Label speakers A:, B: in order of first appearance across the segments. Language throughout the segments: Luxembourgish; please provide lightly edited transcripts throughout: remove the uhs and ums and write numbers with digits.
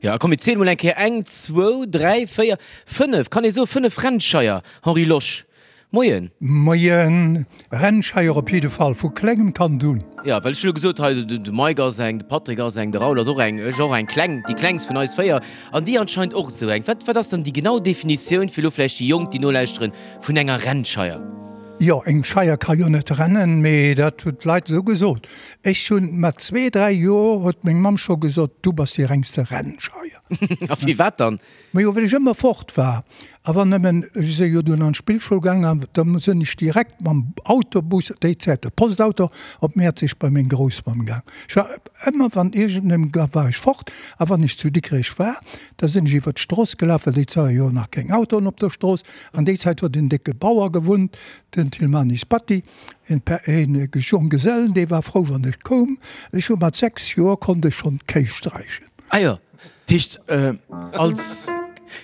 A: Jo, a komm mir ziele mol eng Kéier, eng, zwou, dräi, véier, fënnef, kann ee soe fënnef Rennscheier, Henri Losch. Moien.
B: Moien. Rennscheier op jidde Fall, vu klengem Kand un.
A: Jo, well ech hu lo gesot, hei de Mike ass eng, de Patrick ass eng, de Raoul ass och eng, ech och eng kleng, déi klengst vun eis 4 an déi anscheinend och esou eng. Wat, wat ass dann déi genau Definitioun, fir lo vläicht déi Jonk, déi nolauschteren, vun enger Rennscheier?
B: Jo, eng Scheier ka jo net rennen, mee dat hunn d'Leit esou gesot. Ech hunn mat zwee, dräi Joer huet meng Mamm scho gesot, du bass déi rengste Rennscheier.
A: A firwat dann?
B: Majo, well ech ëmmer fort war. A wann nëmmen, ech si jo dunn an d'Spillschoul gaangen, an da sinn ech direkt mam Autobus, déi Zäit de Postauto, op Mäerzeg bei meng Groussmamm gaang. Ech war ëmmer, wann iergendem ga war ech fort. A wann ech zu Dikrech war, da sinn ech iwwer d'Strooss gelaf, well déi Zäit war jo nach keng Autoen op der Strooss. An déi Zäit huet en décke Bauer gewunnt, den Tilmanis Batty, en Jonggesellen, dee war frou, wann ech koum. Ech hu mat 6 Joer konnt ech schonn d'Kéi sträichen.
A: Ah jo.
C: Dat heescht, als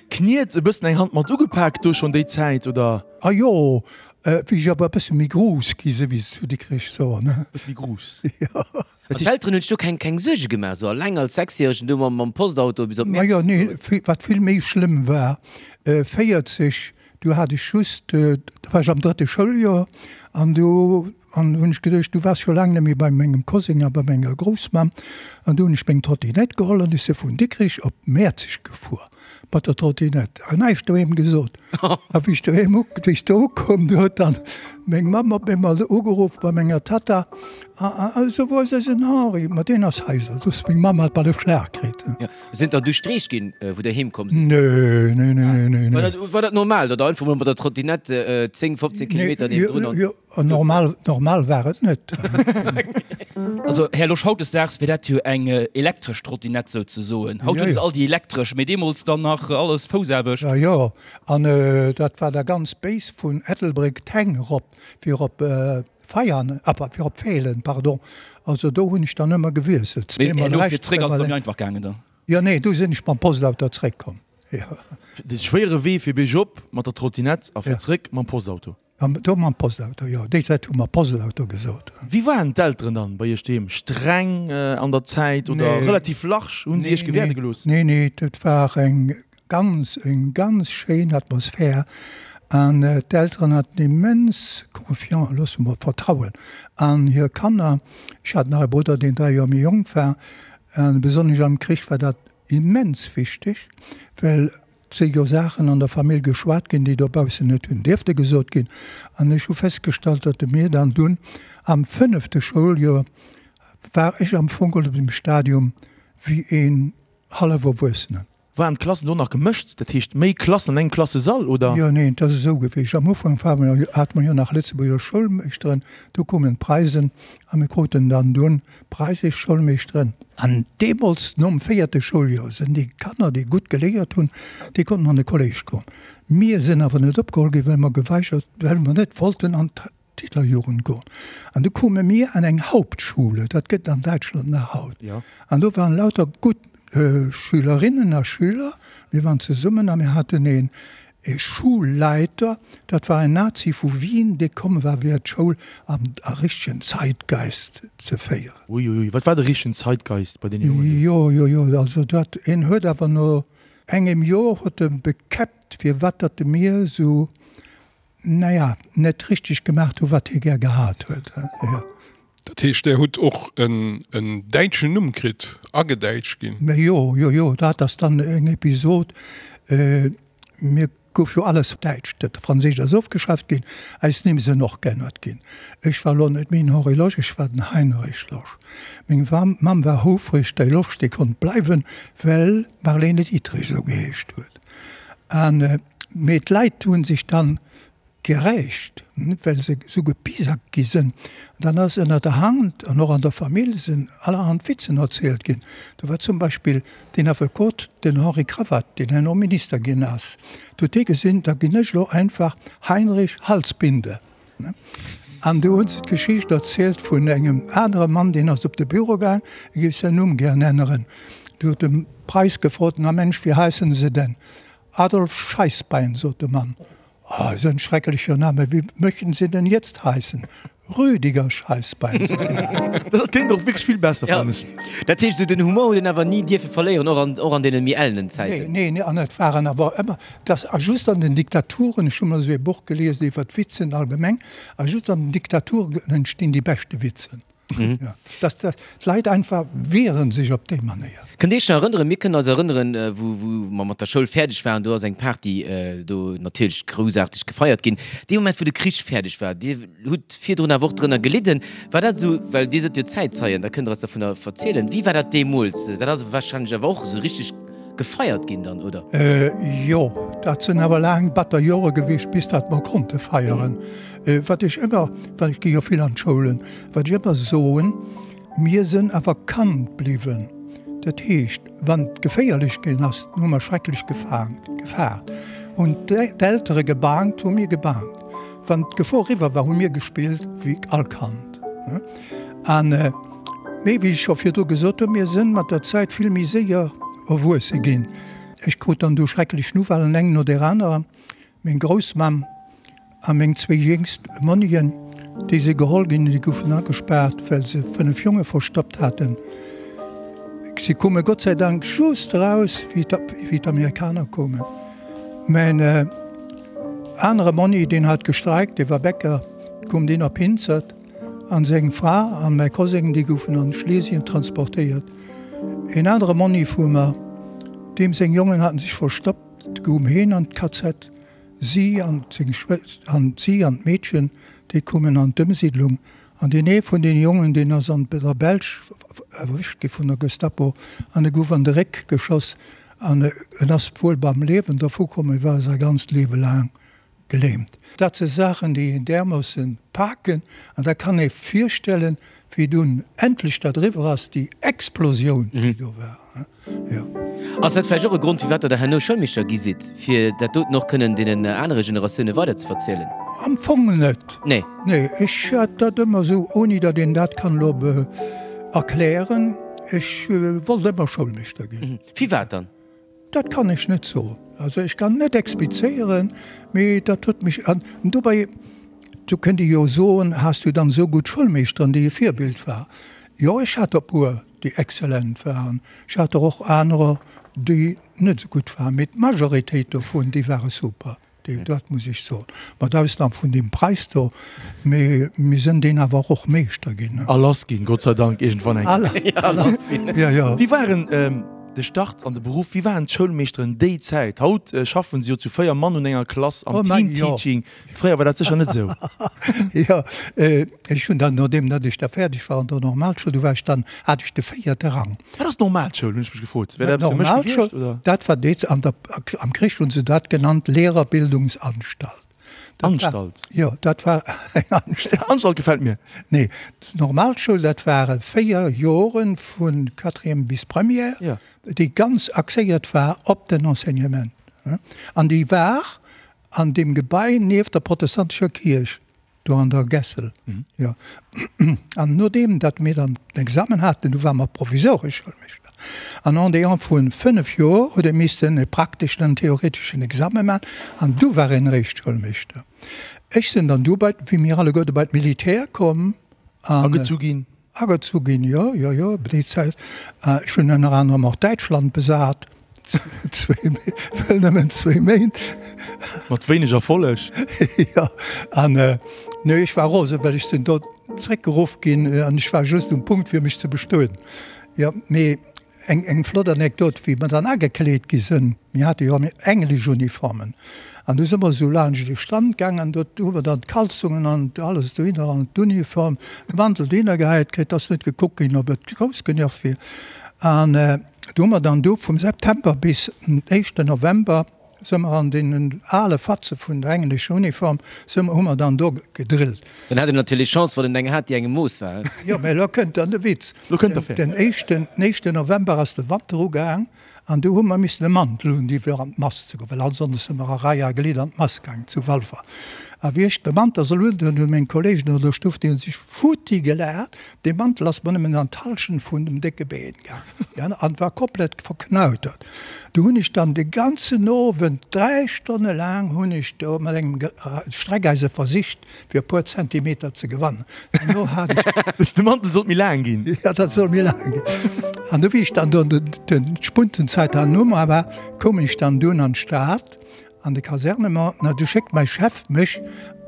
C: Kniet e bëssen eng Hand mat ugepak do schonn déi Zäit, oder?
B: Ah jo, wéi ech awer e bësse méi grouss gi sinn, wéi se zu Dikrech soen.
C: E bësse méi grouss.
B: Jo.
A: An d'Elteren hunn sech do keng, keng Suerge gemaach, esou alleng als Sechsjäregen do mam, mam Postauto bis op
B: Majo, nee, wat vill méi schlëmm war, 40, du hat ech just, do war ech am drëtte Schouljoer, an du an hunn ech geduecht, du waars scho laang net méi bei mengem Koseng a bei menger Groussmamm, an du hunn ech meng Trottinett geholl an ech si vun Dikrich op Mäerzeg gefuer mat der Trottinett an näischt doheem gesot. A wéi ech doheem u, wéi ech do ukoum, du huet dann meng Mamm op eemol ugeruff bei menger Tatta, A, a, also wou ass eisen Henri? Ma deen ass hei, sot se. Meng Mamm hat bal e Schlag kritt.
A: Sinn der du Streech ginn, wou der heem komm
B: sidd? Nee, nee, nee, nee, nee.
A: War dat, war dat normal, datt der einfach mol mat der Trottinette 10, 15 Kilometer niewendrun an.
B: Jo, normal, normal war et net.
D: Also, Här Losch, hautdesdaags wier dat jo eng elektresch Trottinette souzesoen. Haut hunn se all déi elektresch, mee deemools dann nach alles Foussaarbecht.
B: Jo, jo, an dat war da ganz béis vun Ettelbréck d'Häng erop, fir op Veianen, ah, fir op Feelen, pardon. Also do hunn ech dann ëmmer gewiesselt,
D: Mee zweemol herno fir rechts, zréck ass et zweemol da méi lénks. einfach gaangen dann?
B: Jo, nee, du sinn ech mam Postauto zréckkomm, jo.
C: De schwéiere Wee fir biergop mat der Trottinett a fir zréck mam Postauto?
B: Do mam Postauto, jo. Déi Zäit hu mer Postauto gesot.
C: Wéi waren d'Elteren dann bei iech doheem? Streng an der Zäit oder relativ large? Hunn si iech gewäerde gelooss?
B: Nee, nee, dat war eng Ganz, eng ganz schéin Atmosphär an d'Elteren haten immens Confiance, loosse mer Vertrauen an hir Kanner. Ech hat nach e Brudder, deen 3 Joer méi jonk war an besonnesch am Krich war dat immens wichteg, well et si jo Saachen an der Famill geschwat ginn, déi dobaussen net hunn dierfte gesot ginn. An ech hu festgestallt, datt de mir dann dunn am fënnefte Schouljoer war ech am Fong op dem Stadium wéi een hallef Erwuessenen.
C: Waren d'Klassen do nach gemëscht, dat heescht méi Klassen an engem Klassesall, oder?
B: Jo, neen, et ass esou gewiescht, am Ufank ware mer jo, hate mer jo nach Lëtzebuerger Schoulmeeschteren, du koumen d'Preisen a mir kruten dann dunn preisesch Schoulmeeschteren. An deemools, nom véierte Schouljoer, sinn déi Kanner, déi gutt geléiert hunn, déi konnten an de Kolléisch goen. Mir sinn awer net opgeholl ginn, well mer geweigert, well mer net wollten an d'Hitlerjugend goen. An du koume mir an eng Hauptschule, dat gëtt an Däitschland nach haut. An do waren lauter gutt Schülerinnen a Schüler. Mir waren zesummen a mir haten een e Schulleiter, dat war en Nazi vu Wien, dee komm war fir d'Schoul am a richtegen Zeitgeist ze féieren.
C: Uiuiui, wat war de richtegen Zeitgeist bei deene Jongen do?
B: Jo, jo, jo, also dat, een huet awer no engem Joer huet e bekäppt, firwat datt e mir esou naja, net richteg gemacht hu wat hie gär gehat huet. Jo.
E: Dat heescht, Där hutt och en däitschen Numm kritt, agedäitscht ginn?
B: Mä jo, jo, jo, dat ass dann eng Episod. Mir gouf jo alles däitsch, dat Franséischt ass ofgeschaaft ginn, eis Nimm sinn och geännert ginn. Ech war elo net méi den Henri Losch, ech war den Heinrich Losch. Meng Mamm war houfreg, déi Losch, déi konnt bleiwen, well d'Marlene Dietrich esou geheescht huet. An Mee d'Leit hu sech dann gerächt, well se esou gepisackt gi sënn. Dann ass ënner der Hand an och an der Famill sinn allerhand Witzen erzielt ginn. Do war zum Beispill deen Affekot, den Henri Cravatte, deen herno Minister ginn ass. Do huet dee gesinn, da ginn ech elo einfach Heinrich Halsbinde. An do hunn se d'Geschicht erzielt vun engem anere Mann, deen ass op de Büro gaang, e géif säin Numm gären änneren. Do huet de Preiss gefrot, Na Mensch, wéi heissen se denn? Adolf Scheissbein, sot de Mann. Oh, so ein schrecklicher Name, wie möchten Sie denn jetzt heißen? Rüdiger Scheißbein.
C: Dat kléngt och wierklech vill besser, fannen ech.
A: Dat heescht, esou den Humor huet een awer ni dierfe verléieren, och an, och an deene méi ellenen Zäiten.
B: Nee, nee, an et waren awer ëmmer, dass a just an den Diktaturen, ech hu mol esou ee Buch gelies iwwer d'Witzen allgemeng, a just an den Diktaturen entstinn déi beschte Witzen. Ja, dass d'Leit einfach wieren sech op déi Manéier.
A: Kënnt Dir Iech nach erënneren, mir kënnen eis erënneren, wou, wou mer mat der Schoul fäerdeg waren, do ass eng Party do natierlech groussaarteg gefeiert ginn. Dee Moment, wou de Krich fäerdeg war, Dir hutt virdrun awer och drënner gelidden, war dat esou, well Dir sidd jo Zäitzeien, da kënnt Der eis dovunner verzielen. Wéi war dat deemools? Dat ass warscheinlech awer och esou richteg gefeiert ginn dann, oder?
B: Jo, dat sinn awer laang batter Jore gewiescht, bis datt mer konnte feieren. Wat ech ëmmer, well ech gi jo vill an d'Schoulen, wat ech ëmmer soen, Mir sënn awer Kand bliwwen. Dat heescht, wann et geféierlech ginn ass, hu mer schrecklech gefaangt, gefaart. Hunn d'Eltere gebaangt, hu mir gebaangt. Wann d'Gefor eriwwer war, hu mir gespillt wéi all Kand. An, mee wéi ech scho virdru gesot hunn, mir sënn mat der Zäit vill méi séier erwuesse ginn. Ech krut dann du schrecklech Nouvellen, eng no där anerer. Meng Groussmamm a meng zwéi jéngst Monnien, déi si geholl ginn, déi goufen agespaart, well se 5 Jonge verstoppt haten. Si koume Gott sei Dank just eraus, wéi d'Amerikaner koumen. Mäin anere Monni, deen hat gestreikt, dee war Bäcker, koum deen op Hinzert, an seng Fra an mäi Koseng, déi goufen an Schlesien transportéiert. Een anere Monni vu mer, deem seng Jongen haten sech verstoppt, Goung heen an d'KZ, si an seng Schwëster, an si an d'Meedchen, déi koumen an d'Ëmsiidlung. An deen ee vun deene Jongen, deen ass an der Belsch erwëscht gi vun der Gestapo an e gouf an de Réck geschoss an en ass wuel beim Liewen dervu komm, mee war säi ganzt Liewe laang Gelähmt. Dat si Saachen, déi een därmoossen paken. An da kann ee virstellen, wéi dunn endlech dat eriwwer ass, déi Explosioun, déi do war. Jo.
A: Ass dat vläicht och e Grond, firwat Der da herno Schoulmeeschter gi sidd, fir dat doten och kënnen deenen anere Generatioune weiderzeverzielen?
B: Am Fong net.
A: Nee.
B: Nee, ech hat dat ëmmer esou, ouni datt een dat kann elo erklären, ech wollt ëmmer Schoulmeeschter ginn.
A: Firwat dann?
B: Dat kann ech net soen. Also ech kann net explizéieren, mee dat huet mech, an dobäi, do kënnt ee jo soen, has du dann esou gutt Schoulmeeschteren, déi e Virbild war? Jo, ech hat der e puer, déi exzellent waren. Ech hat der och anerer, déi net esou gutt waren, mee d'Majoritéit dovun, déi ware super. Dat muss ech soen, mat Ausnam vun deem Preis do, mee mir sënn deen awer och Meeschter ginn.
C: A lass ginn, Gott sei Dank, iergendwann eng
B: Kéier. A lass ginn. Jo, jo.
C: Wéi waren de Start an de Beruff, wéi waren d'Schoulmeeschteren déi Zäit? Haut schaffen se jo zu 4 Mann un enger Klass am Team-Teaching. Fréier war dat sécher net esou.
B: Jo, ech hunn dann, nodeem datt ech da fäerdeg war an der Normalschoul, du war ech dann, hat ech de véierte Rang.
C: Wat ass d'Normalschoul, hunn ech mech gefrot.
B: Wär dat eppes fir mech gewiescht, oder? Dat war déi, an der, am Krich hunn se dat genannt, Lehrerbildungsanstalt.
C: Dat war, Anstalt?
B: Jo, dat war eng
C: Anstalt. Anstalt gefält mir.
B: Nee, d'Normalschoul, dat ware 4 Jore vu Quatrième bis Première,
C: Ja.
B: déi ganz axéiert war op den Enseignement. An déi war an deem Gebai nieft der protestantescher Kierch. Do an der Gässel, jo. An nodeem datt mir dann den Examen haten, du ware mer provisoresch Schoulmeeschter. An en déant vu 5 Joer huet ee missten e prakteschen an theoreteschen Examen maachen an du war een eréischt Schoulmeeschter. Ech sinn dann du bei, wéi mir alleguerte bei d'Militär komm
C: an. Agezu ginn.
B: Agezu ginn, jo, jo, jo, déi Zäit. Ech hunn ënner anerem och Däitschland besat, zwéi, well nëmmen zwéi Méint.
C: Mat wéineg Erfolleg.
B: Jo, an nee, ech war rosen, well ech sinn do zréckgeruff ginn an ech war just um Punkt, fir mech ze bestueden. Jo, mee Eng eng flott Anekdot, wéi mer dann agekleet gi sënn, mir hate jo englesch Uniformen, an du si mer esou laanscht de Stand gaang an do hu mer dann d'Kalzongen an alles dohinner an d'Uniform, de Mantel dohinner gehäit kritt, ass net gekuckt ginn, ob et grouss genuch wier. An do hu mer dann du vum September bis den éischten November, Së mer an deenen ale Fatze vun der englescher Uniform, së mer, hu mer dann do gedrillt.
A: Dann hat een natierlech Chance, wann en eng hat, déi engem Mooss war.
B: Jo, mä elo kënnt dann de Witz.
C: Lo kënnt der fir.
B: Den éischten, den éischten November ass de Wanter ugaang an du hu mer missen e Mantel hunn, déi fir an d'Mass ze goen, well ansonsten së mer a Rei a Glidd an d'Mass gaang zu Walfer. A wéi ech de Mantel soll undoen, hunn meng Kolleegen an der Stuff, déi hunn sech futti gelaacht, dee Mantel ass mer nëmmen an d'Halschent vun dem décke Been gaangen an war komplett verknautert. Do hunn ech dann de ganzen Owend, 3 Stonne laang hunn ech do mat engem Streckeise versicht, fir e puer Zentimeter ze gewannen. Duerno hat
C: ech. De Mantel sollt méi laang ginn.
B: Ja, dat soll méi laang ginn. An du wéi ech dann do d'Spuntenzäit herno war, koum ech dann dunn an d'Stad, an de Kasernement. Na, du schéckt mäi Chef mech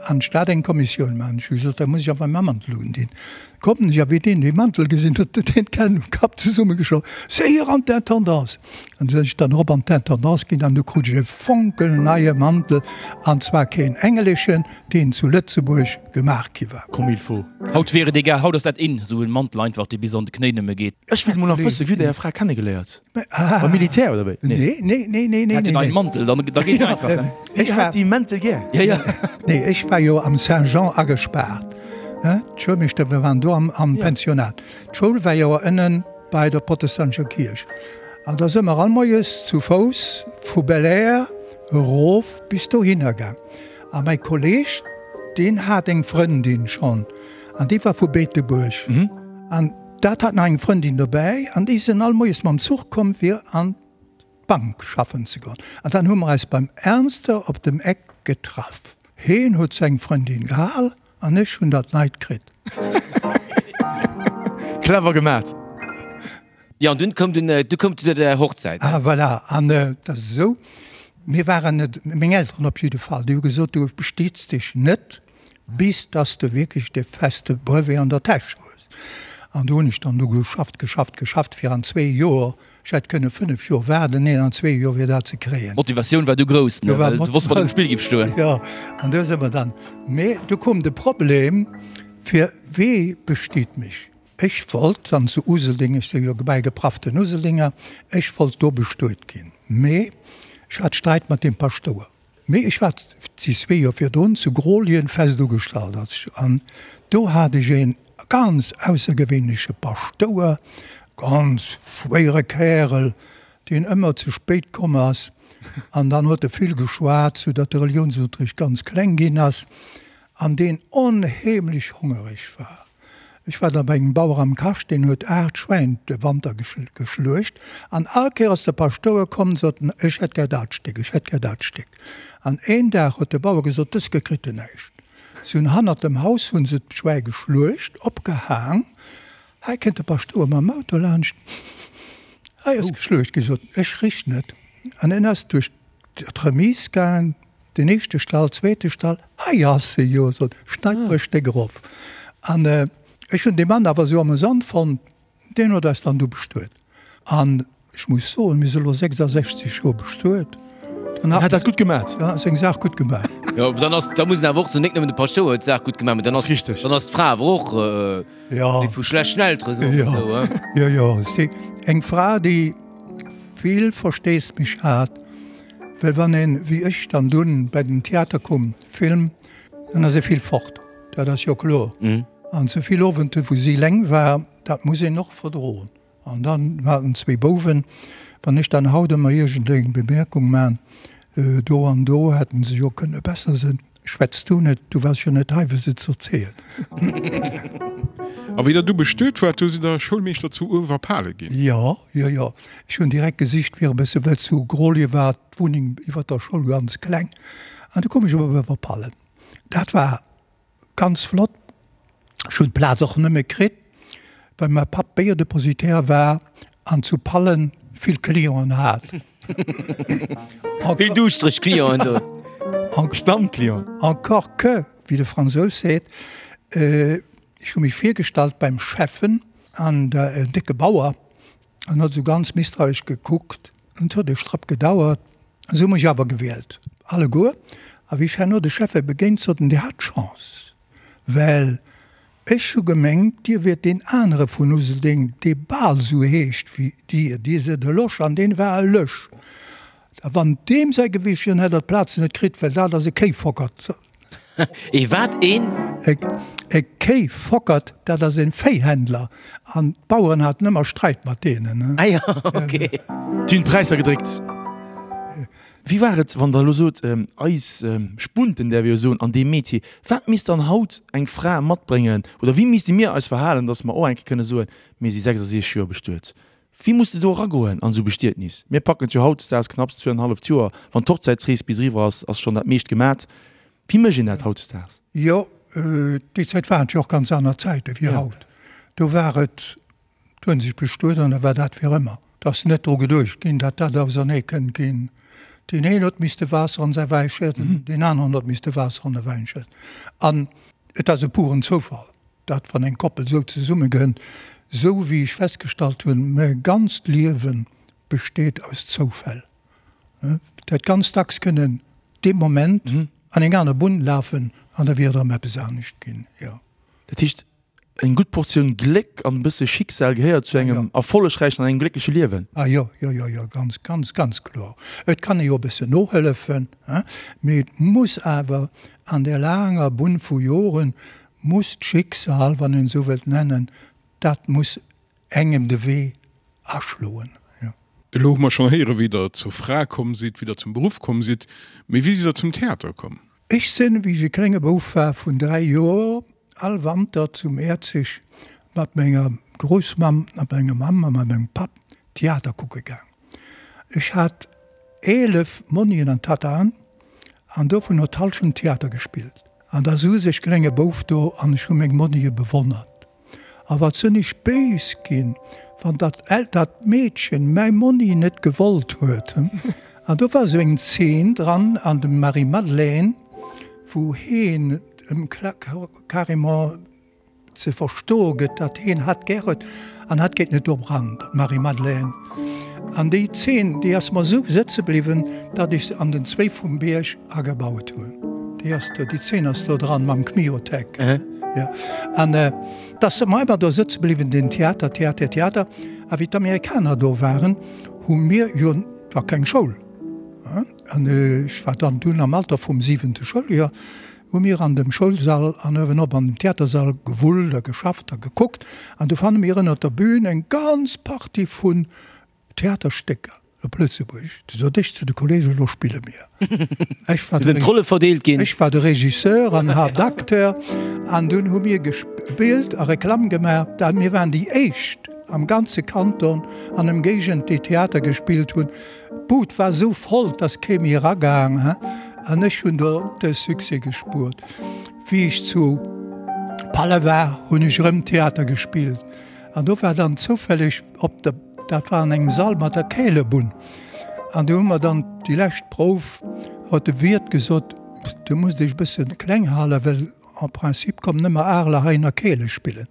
B: an d'Stad eng Kommissioun maachen. Ech hu gesot, da muss ech awer mäi Mantel undinn. Kommen ech, a wéi deen dee Mantel gesinn huet, huet deen d'Hänn um Kapp zesummegeschloen, Séier an d'Intendance! An du sinn ech dann erop an d'Intendance ginn an du krut ech e fonkelneie Mantel, an zwar keen engleschen, deen zu Lëtzebuerg gemaach gi war.
C: Comme il faut.
D: Haut wier et egal, haut ass dat in, esou en Mantel einfach, dee bis an de Knéi nëmme geet.
C: Ech wéilt mol nach wëssen, wéi hutt Dir Är Fra kennegeléiert? Beim Militär oder wéi?
B: Nee, nee, nee, nee, nee.
D: Hat en neien Mantel, dann, da geet et einfach. Ne?
C: Ech hat déi Mäntel gär.
D: Ja, ja.
B: Nee, ech war jo am Saint-Jean agespaart. D'Schoulmeeschter, wir waren do am, am ja. Pensionat. D'Schoul war jo ënnen bei der protestantescher Kierch. An da si mer all moies zu Fouss vu Belair erof bis dohinner gaang. A mäi Kolleeg, deen hat eng Frëndin schonn, an déi war vu Beetebuerg. Mhm. An Dat hat nach eng Frëndin dobäi an déi sinn all moies mam Zuch komm fir an d'Bank schaffen ze goen. An dann hu mer eis beim Ernster op dem Eck getraff. Heen huet seng Frëndin gehal an ech hunn dat neit kritt.
C: Clever gemat.
A: Jo, an dunn koum den, du koum zu der Hochzäit.
B: Ah voilà, an et ass esou, mir waren net, meng Elteren op jidde Fall, déi hu gesot, du bestiets dech net bis dass de wierklech de feste Brevet an der Täsch hues. An do hunn ech dann do geschafft, geschafft, geschafft, fir an zwee Joer, ech hätt kënne 5 Joer waarden, neen, an zwee Joer fir dat ze kréien.
D: D'Motivatioun war du grouss, ne, well du wosst, wat um Spill giff stoen.
B: Jo, an do si mer dann. Mee du koum de Problem, fir wee bestiet mech? Ech wollt dann zu Useldeng, ech si jo bäigeprafften Useldinger, ech wollt do bestuet ginn, mee ech hat Sträit mat deem Paschtouer. Mee ech war déi zwee Joer virdrun zu Grollien fest ugestallt als an do hat ech een ganz aussergewéinleche Paschtouer, ganz schwéiere Kärel, deen ëmmer ze spéit komm ass an dann huet e vill geschwat, sou datt de Reliounsunterricht ganz kleng ginn ass an deen onheemlech hongereg war. Ech war da bei engem Bauer am Kascht, deen huet 8 Schwäin de Wanter geschluecht an all Kéier ass de Paschtouer komm an sot, Ech hätt gär dat Stéck, ech hätt gär dat Stéck. An een Dag huet de Bauer gesot, Dës Kéier kritt en näischt. Si hunn hannert dem Haus hu se d'Schwäi geschluecht, opgehaang. Hei kënnt de Paschtouer mam Auto laanscht, Hei ass geschluecht ginn, sot en, ech rich net. An en ass duerch d'Remise gaang, den éischte Stall, zweete Stall, hei ass se jo, sot, schneit mer e Stéck erof. An ech hunn dee Mann awer esou amüsant fonnt, deen huet eis dann du bestuet. An ech muss soen, mir si elo 66 Joer bestuet,
C: dann hat dat gutt gemaat.
B: Dann hat seng Saach gutt gemaach.
A: Jo, dann ass, da muss een awer och soen, net nëmmen de Paschtouer huet d'Saach gutt gemaach, mä dann ass, dann ass d'Fra awer och déi vu schlechten Eltere, soe mer esou,
B: he? Jo, jo, si eng Fra, déi vill Versteesdemech hat. Well wann een, wéi ech dann dunn bei den Theater koum, Film, dann ass ee vill fort, dat ass jo kloer. An ze vill Owenten, wou si eleng war, dat muss een och verdroen. An dann haten zwéi Bouwen, wann ech dann haut ëmmer iergendeng Bemerkung man, do an do hätten se jo kënne besser sinn, schwätz du net, du waars jo net hei fir se z'erzielen.
E: A wéi der du bestuet waart, do sidd der Schoulmeeschter zu Uewerpale ginn?
B: Jo, jo, jo. Ech hunn direkt gesicht fir e bësse, well zu Grolje war d'Wunneng iwwer der Schoul ganz kleng, an du koum ech op Uewerpallen. Dat war ganz flott. Ech hunn d'Plaz och nëmme kritt, well mäi Papp Béierdepositaire war an zu Pallen vill Clienten hat.
A: Vill duuschtereg Clienten do.
C: Stammclient.
B: Encore que, wéi de Fransous seet, ech hu mech virgestallt beim Schäffen an en décke Bauer an huet esou ganz misstrauesch gekuckt. Et huet e Strapp gedauert, se hu mech awer gewielt, alleguer. A wéi ech herno de Schäffe begéint, sot en, Dir hat Chance, well ech hu gemengt, Dir wiert deen anere vun Useldeng, dee bal esou heescht wéi Dir. Dir sidd e Losch an deen war e Lösch. A wann deem säi gewiescht wier, dann hätt der d'Plaz net kritt, well dat ass e Kéifockert.
A: Ee wat? Een?
B: E Kéifockert, dat ass e Véihändler. An d'Baueren haten ëmmer Sträit mat deenen.
A: Ah jo, ok.
C: Déi hunn d'Präisser gedréckt. Wéi war et, wann Der elo sot, eis Spunten, däerf ee jo soen, an deem Metier, wat misst dann haut eng Fra matbréngen oder wéi misste mir eis verhalen, datt mer och eng Kéier kënne soen, mir si 66 Joer bestuet? Wéi muss de do eragoen an esou Bestietnis? Mir packen et jo hautdesdaags knapps zwee an en halleft Joer, wann d'Hochzäitsrees bis eriwwer ass, ass schonn dat meescht gemat. Wéi mécht een dat hautdesdaags?
B: Jo, déi Zäit waren et jo och ganz aner Zäite wéi haut. Do war et, do hunn sech bestuet an da war dat fir ëmmer. Et ass net dru geduecht ginn, datt dat ausernee kënnt ginn. Deen een huet misste Waasser an säi Wäi schëdden, deen aneren huet misste Waasser an de Wäin schëdden. An et ass e puren Zoufall, dat wann eng Koppel esou zesummegënnt, esou wéi ech festgestallt hunn, mäi ganzt Liewe besteet aus Zoufäll. Dat ganz dacks kënnen dee Moment an eng aner Bunn lafen an da wier et erëm eppes anescht ginn, jo.
C: Dat heescht, eng gutt Portioun Gléck an e bësse Schicksal gehéiert zu engem erfollegräichen an engem gléckleche Liewen?
B: Ah jo, jo, jo, jo, ganz, ganz, ganz kloer. Et kann ee jo e bëssen nohëllefen, hein, mee et muss awer an där laanger Bunn vu Joren muss d'Schicksal, wann een esou wëllt nennen, dat muss engem de Wee aschloen, jo.
E: Elo hu mer schonn héieren, wéi Der zur Fra komm sidd, wéi Der zum Beruff komm sidd. Mee wéi sidd Der zum Theater komm?
B: Ech sinn, wéi ech e klénge Bouf war, vun 3 Joer, all Wanter zu Mäerzeg mat menger Groussmamm a menger Mamm a mat mengem Papp Theater kucke gaang. Ech hat 11 Monnien an Tattaen an dovun huet d'Hallschent Theater gespillt. An da souz ech klénge Bouf do an ech hu meng Monnie bewonnert. A wat sënn ech béis ginn, wann dat dat Meedchen mäi Monni net gewollt huet. An do war esou eng Zeen dran an dem Marie-Madeleine, wou heen em carrément ze verstoe gëtt, datt heen hatt gär huet an hatt geet net dorop ran, d'Marie-Madeleine. An déi Zeen, déi ass mer esou sëtze bliwwen, datt ech se an den Zwéi vum Bierg agebaut hunn. Déi ass do, déi Zeen ass do dran mam Kmiotek. Jo. An et ass mer ëmmer do sëtze bliwwen, den Theater, Theater, Theater. A wéi d'Amerikaner do waren, hu mir jo, et war keng Schoul, an ech war dann dunn am Alter vum siwente Schouljoer, hu mir an dem Schoulsall an uewenop an dem Theatersall gewullt a geschafft a gekuckt an du fanne mir ënnert der Bühn eng ganz Partie vun Theaterstécker op Lëtzebuergesch. Du sot ech zu de Kollegen, elo spille mir.
A: Ech war de, Sinn d'Rolle verdeelt ginn?
B: Ech war de Regisseur an Haaptacteur an dunn hu mir gespillt a Reklamm gemaach. Dat mir waren déi éischt am ganze Kanton an Ëmgéigend, déi Theater gespillt hunn. D'Bud war esou voll, dass kee méi eragaang, an ech hunn do de Succès gespuert. Wéi ech zu Palle war, hunn ech erëm Theater gespillt, an do war dann zoufälleg op der, dat war an engem Sall mat der Kälebunn, an do hu mer dann déi lescht Prouf, huet de Wiert gesot, Du musst dech e bësse kleng halen, well en principe kommen nëmme Areler heihinner Keele spillen.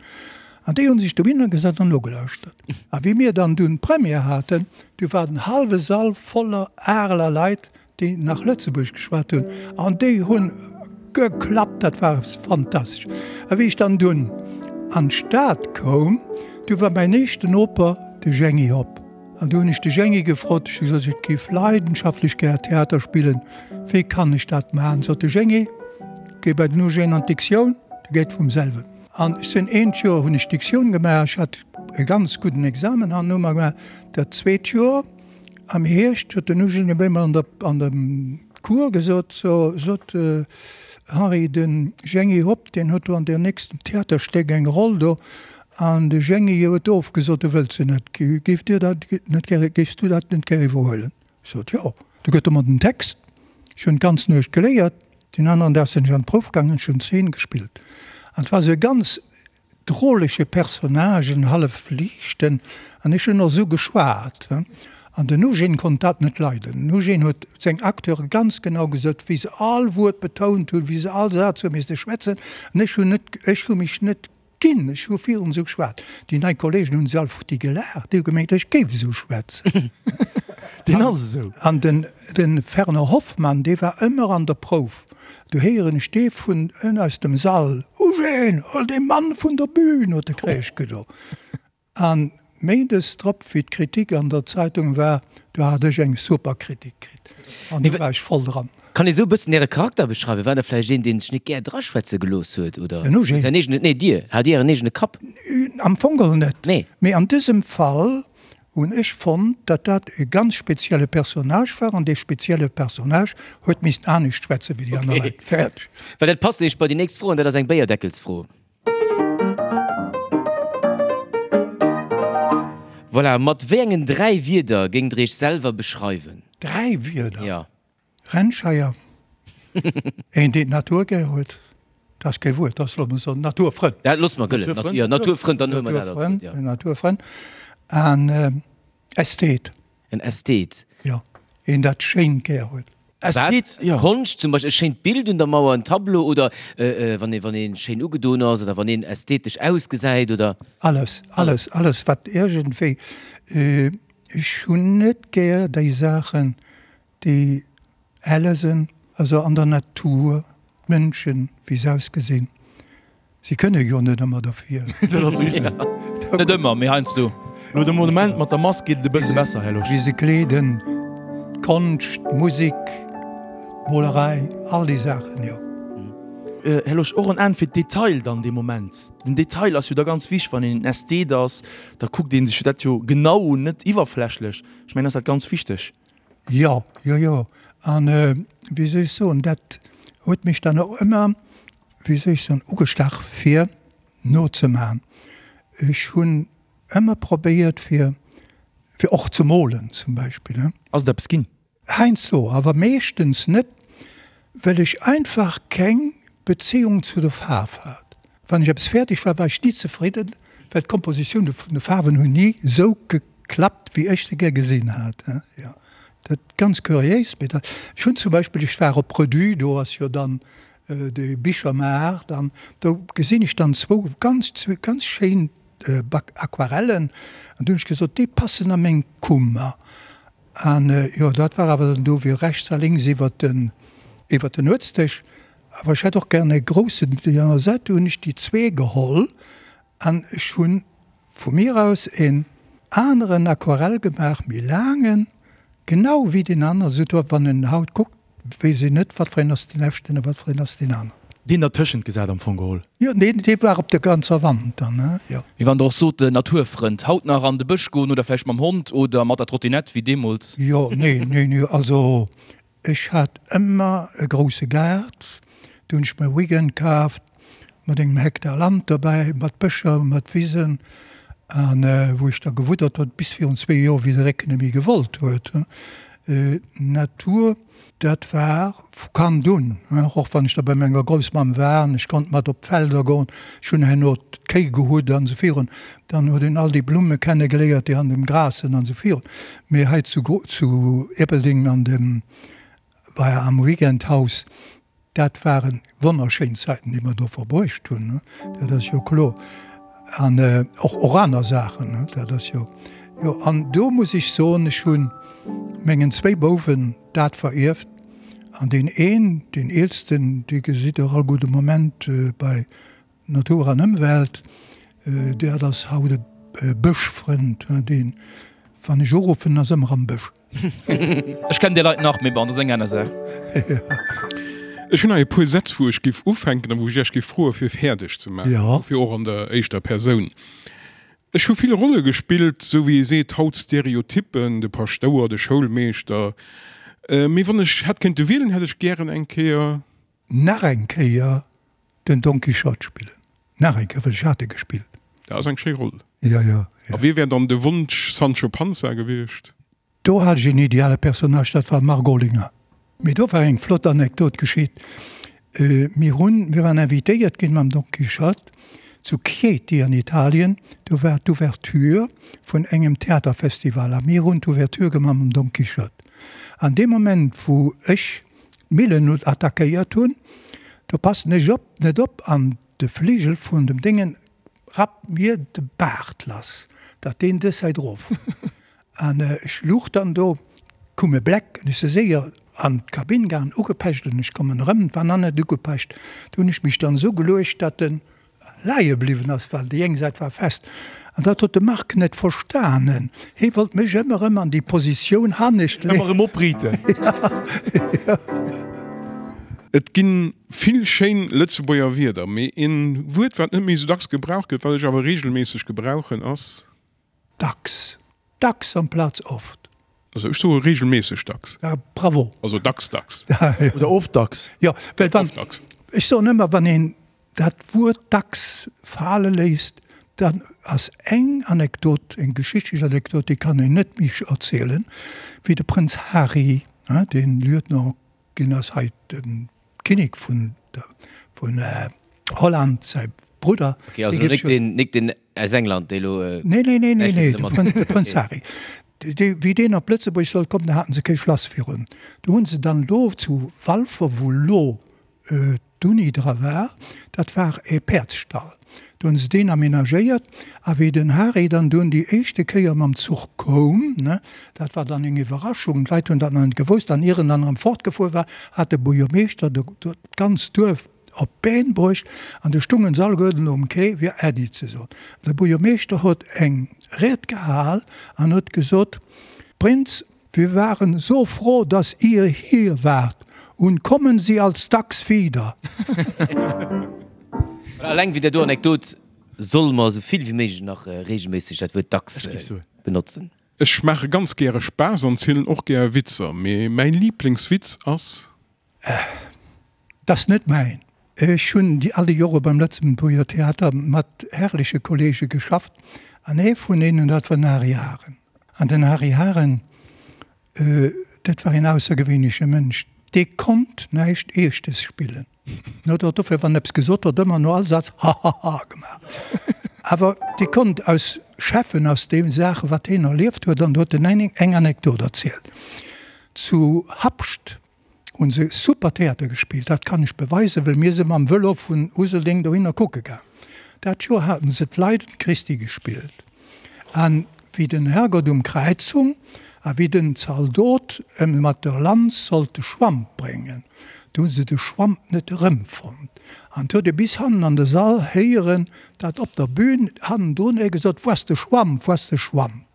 B: An déi hunn sech dohinner gesat an nogelauschtert. A wéi mir dann dunn d'Première haten, du war den hallwe Sall voller Areler Leit, déi nach Lëtzebuergesch geschwat hunn, an déi hunn geklappt, dat war fantastesch. A wéi ech dann dunn an d'Stad koum, du war mäin éischten Noper de Jeangy Hopp. An du hunn ech de Jeangy gefrot, ech hu gesot, ech géif leidenschaftlech gär Theater spillen, wéi kann ech dat maachen? Sot de Jeangy, Géi bei den Eugène an d'Diktioun, dat geet vum selwen. An ech sinn eent Joer hunn ech Diktioun gemaach, ech hat e ganz gudden Examen herno mar gemaach. Dat zweet Joer am Hierscht huet den Eugène op eemol an der an dem Cours gesot, so sot Henri, de Jeangy Hopp, deen huet do an deem nächsten Theaterstéck eng Roll do, an de Jeangy huet ofgesot, e wëllt se net. Géif Dir dat net gäre, géifs du dat net gär iwwerhuelen? Ech sot, jo. Du gëtt e mer den Text. Ech hunn d'ganz Nuecht geléiert. Deen aneren Dag sinn ech an d'Prouf gaangen, ech hunn d'Zeen gespillt. An et war esou e ganz drolege Personnage, en hallef liichten, an ech hunn och esou geschwat. An den Eugène konnt dat net leiden. Den Eugène huet seng Acteure ganz genau gesot, wéi se all Wuert betount hunn, wéi se all Saz hu misste schwätzen. An ech hunn net, ech hu mech net Ginn, ech hu virun esou geschwat. Déi nei Kollegen hunn se all futti gelaacht, déi hu gemengt, ech géif esou schwätzen.
C: Deen ass esou.
B: An den, de Fernand Hoffmann, dee war ëmmer an der Prouf. Du héieren ech dee vun ënn aus dem Sall, Eugène, hol dee Mann vun der Bühn, huet de Kräisch gedo. An méindes drop, wéi d'Kritik an der Zeitung war, do hat ech eng super Kritik kritt. An do war ech voll dran.
A: Kann ee sou e bëssen Äre Charakter beschreiwen? War der vläicht een, dee sech net gär draschwätze gelooss huet, oder
B: Den Eugène?
A: säin eegenen, nee, Dir, hat Dir Ären eegene Kapp?
B: Am Fong geholl net.
A: Nee.
B: Mee an dësem Fall. Hunn ech fonnt, datt dat e ganz spezielle Personnage war an dee spezielle Personnage huet missten anescht schwätze wéi déi aner Leit. Fäerdeg.
A: Well dat passt nämlech bei déi nächst Fro an dat ass eng Béierdeckelsfro. Voilà, mat wéi engen 3 Wierder géingt der Iech selwer beschreiwen?
B: 3 Wierder?
A: Jo.
B: Rennscheier, een deen d'Natur gär huet, dat ass kee Wuert, dat ass loosse mer soen Naturfrënd.
A: Dat loosse mer gëllen, Naturfrënd, jo, Naturfrënd, dann huele mer dat als Wuert, jo.
B: Naturfrënd an Ästhet.
A: En Ästhet.
B: Jo, een dat Schéint gär huet.
A: Ästhet, jo. Konscht zum Beispill, e schéint Bild un der Mauer, en Tableau oder wann ee wann ee schéin ugedoen ass oder wann een ästhetesch ausgesäit oder.
B: Alles, alles, alles wat iergendwéi, ech hunn net gär déi Saachen, Déi Ellesen, also an der Natur, d'Mënschen, wéi se ausgesinn, si kënne jo net ëmmer derfir.
C: Dat ass richteg.
D: Net ëmmer, mee heiansdo.
C: Lo de Moment mat der Mask geet et e bësse besser, Här Losch.
B: Wéi se kleeden, d'Konscht, d'Musek, d'Molerei, all déi Saachen, jo.
C: Här Losch, och en Enn fir d'Detail dann dee Moment. Den Detail ass jo da ganz wichteg, wann een en Ästhet ass, da kuckt ee sech dat jo genau un, net iwwerflächlech. Ech mengen, ass dat ganz wichteg.
B: Jo, jo, jo. An wéi soll ech soen, dat huet mech dann och ëmmer, wéi soll ech soen, ugestach fir nozemachen. Ech hunn ëmmer probéiert fir, fir och ze molen zum Beispill, he.
C: Ass et eppes ginn?
B: Heiansdo, awer meeschtens net, well ech einfach keng Beziehung zu der Faarf hat. Wann ech eppes fäerdeg war, war ech ni zefridden, well d'Kompositioune vun de Faarwen hunn ni esou geklappt, wéi ech se gär gesinn hat. Jo, dat ganz kuriéis, mee dat, ech hunn zum Beispill, ech war op Redu, do ass jo dann de Bichermaart, an do gesinn ech dann zwou ganz, ganz schéin Aquarellen, an du hunn ech gesot, déi passen a meng Kummer. An jo, dat war awer dann do wéi rechts a lénks iwwert den, iwwert den Nuetsdësch. Awer ech hätt och gären e groussen déi aner Säit. Du hunn ech déi zwee geholl an ech hunn vu mir aus en aneren Aquarell gemaach, méi laangen, genau wéi deen aneren, esou wann en haut kuckt, Weess een net, wat fir een ass deen echten a wat fir een ass deen aneren.
C: Deen dertëschent gesat am Fong geholl.
B: Jo, deen, dee war op der ganzer Wand dann, he, jo.
D: Mee wann Der och sot, Naturfrënd, haut nach an de Bësch goen oder vläicht mam Hond oder mat der Trottinett wéi deemools?
B: Jo, nee, nee, nee, also ech hat ëmmer e grousse Gaart, do hunn ech mer e Weekend kaaft mat engem Hektar Land dobäi, mat Bëscher, mat Wisen, an wou ech da gewuddert hunn, bis virun zwee Joer, wéi de Récken net méi gewollt huet. Natur, dat war vu Kand un, och wann ech da bei menger Groussmamm war an ech konnt mat op d'Felder goen, ech hunn herno d'Kéi gehutt an esou virun, dann huet een all déi Blumme kenne geléiert, déi an dem Gras sinn an esou virun. Mee hei zu zu Ierpeldeng an dem bei am Weekendhaus, Dat ware wonnerschéin Zäiten, déi mer do verbruecht hunn, dat ass jo kloer. An och och aner Saachen, dat ass jo, jo. An do muss ech soen, ech hu mengen zwéi Bouwen dat verierft. An deen een, deen eelsten, dee gesitt Der all gudde Moment bei Natur an Ëmwelt, dat ass haut e Bëschfrënd, deen, wann ech uruffen, ass ëmmer am Bësch.
D: Ech kennen déi Leit nach, mee bon, dat ass eng aner Saach.
E: Ech hunn hei e puer Sätz, wou ech géif ufänken a wou ech Iech géif froe fir fäerdeg ze maachen, dofir och an der éischter Persoun. Ech hu vill Rolle gespillt, sou wéi ee seet haut Stereotyppen, de Paschtouer, de Schoulmeeschter. Mee wann ech hätt kéinte wielen, hätt ech gären eng Kéier.
B: Nach eng Kéier den Don Quichotte spillen. Nach eng Kéier, well ech hat e gespillt.
E: Dat ass eng schéi Roll.
B: Jo, jo, jo.
E: A wie wär dann de Wonsch Sancho Panza gewiescht?
B: Do hat ech een ideale Personnage, dat war d'Margot Olinger. Mee do war eng flott Anekdot geschitt. Mir hunn, mir waren invitéiert ginn mam Don Quichotte zu Chieti an Italien. Do war d'Ouverture vun engem Theaterfestival a mir hunn d'Ouverture gemaach mam Don Quichotte. An dee Moment, wou ech d'Millen attackéiert hunn, do passen ech op net op an de Fligel vun dem Déngen rappt mir de Baart lass, datt deen dës Säit erof huet. An ech luch dann do, koum e Bleck an ech si séier an d'Kabinn gaangen, ugepecht an ech kommen erëm, et war nach net ugepecht. Do hunn ech mech dann esou geluecht, datt en leie bliwwen ass, well déi eng Säit war fest. An dat huet de Marc net verstanen. Hee wollt mech ëmmer erëm an déi Positioun hannescht
C: leeën. Ëmmer erëm opriiten.
E: Et ginn vill schéin Lëtzebuerger Wierder, mee een Wuert wat net méi sou dacks gebraucht gëtt, wat ech awer regelméisseg gebrauchen ass.
B: Dacks. Dacks amplaz oft.
E: Also ech soe regelméisseg dacks.
B: Ja, bravo.
E: Also dacks dacks.
C: Oder oft dacks.
B: Jo, well wann, ech soen ëmmer, wann een dat Wuert dacks fale léisst, dann ass eng Anekdot, eng geschichtlech Anekdot, déi kann een net méi erzielen, wéi de Prënz Hari, dee Lieutenant ginn ass, hei de Kinnek vun vun Holland, säi Brudder.
A: Okay, also nik den, nik den aus England, dee lo.
B: Nee, nee, nee, nee, nee, de Prënz, de Prënz Hari. Dee, wéi deen op Lëtzebuerg sollt kommen, da haten se kee Schlass virun. Do hunn se dann do zu Walfer, wou lo d'Uni dra war, dat war e Päerdsstall, do hunn se deen aménagéiert. A wéi den Hari dann dunn déi éischte Kéier mam Zuch koum, ne, dat war dann eng Iwwerraschung, d'Leit hunn dat nach net gewosst, an ier en dann erëm fortgefuer war, hat de Buergermeeschter d'ganzt Duerf op d'Been bruecht an du stungen se alleguerten um Quai fir Äddi ze soen. De Buergermeeschter huet eng Ried gehal an huet gesot, Prinz, wir waren so froh, dass Ihr hier wart und kommen Sie als dacks wieder.
A: Alleng wéi där do Anekdot solle mer esou vill wéi méiglech nach regelméisseg dat Wuert dacks benotzen.
E: Ech maache ganz gäre Spaass an zielen och gär Witzer, mee mäin Liiblingswitz ass.
B: Äh, 't ass net mäin. Ech hunn déi all déi Jore beim Lëtzebuerger Theater mat herrleche Kollege geschafft an ee vun deenen, dat war den Harry Haren. An den Harry Haren, dat war een aussergewéinleche Mënsch, dee konnt näischt Eeschtes spillen. En huet och dofir, wann en eppes gesot huet, ëmmer no all Saz hahaha gemaach. Awer dee konnt aus schäffen aus deem Saache wat heen erlieft huet an do huet en eng Anekdot erzielt. Zu Habscht Hunn se super Theater gespillt, dat kann ech beweisen, well mir si mam Vëlo vun Useldeng dohinner kucke gaang. Dat Joer haten se d'Leiden Christi gespillt an wéi den Herrgott um Kräiz hung a wéi den Zaldot em mat der Lanz sollt de Schwamp bréngen, du hunn se de Schwamp net erëmfonnt an 't huet ee bis hannen an de Sall héieren, dat op der Bühn hannendrun ee gesot, Wou ass de Schwamp, wou ass de Schwamp?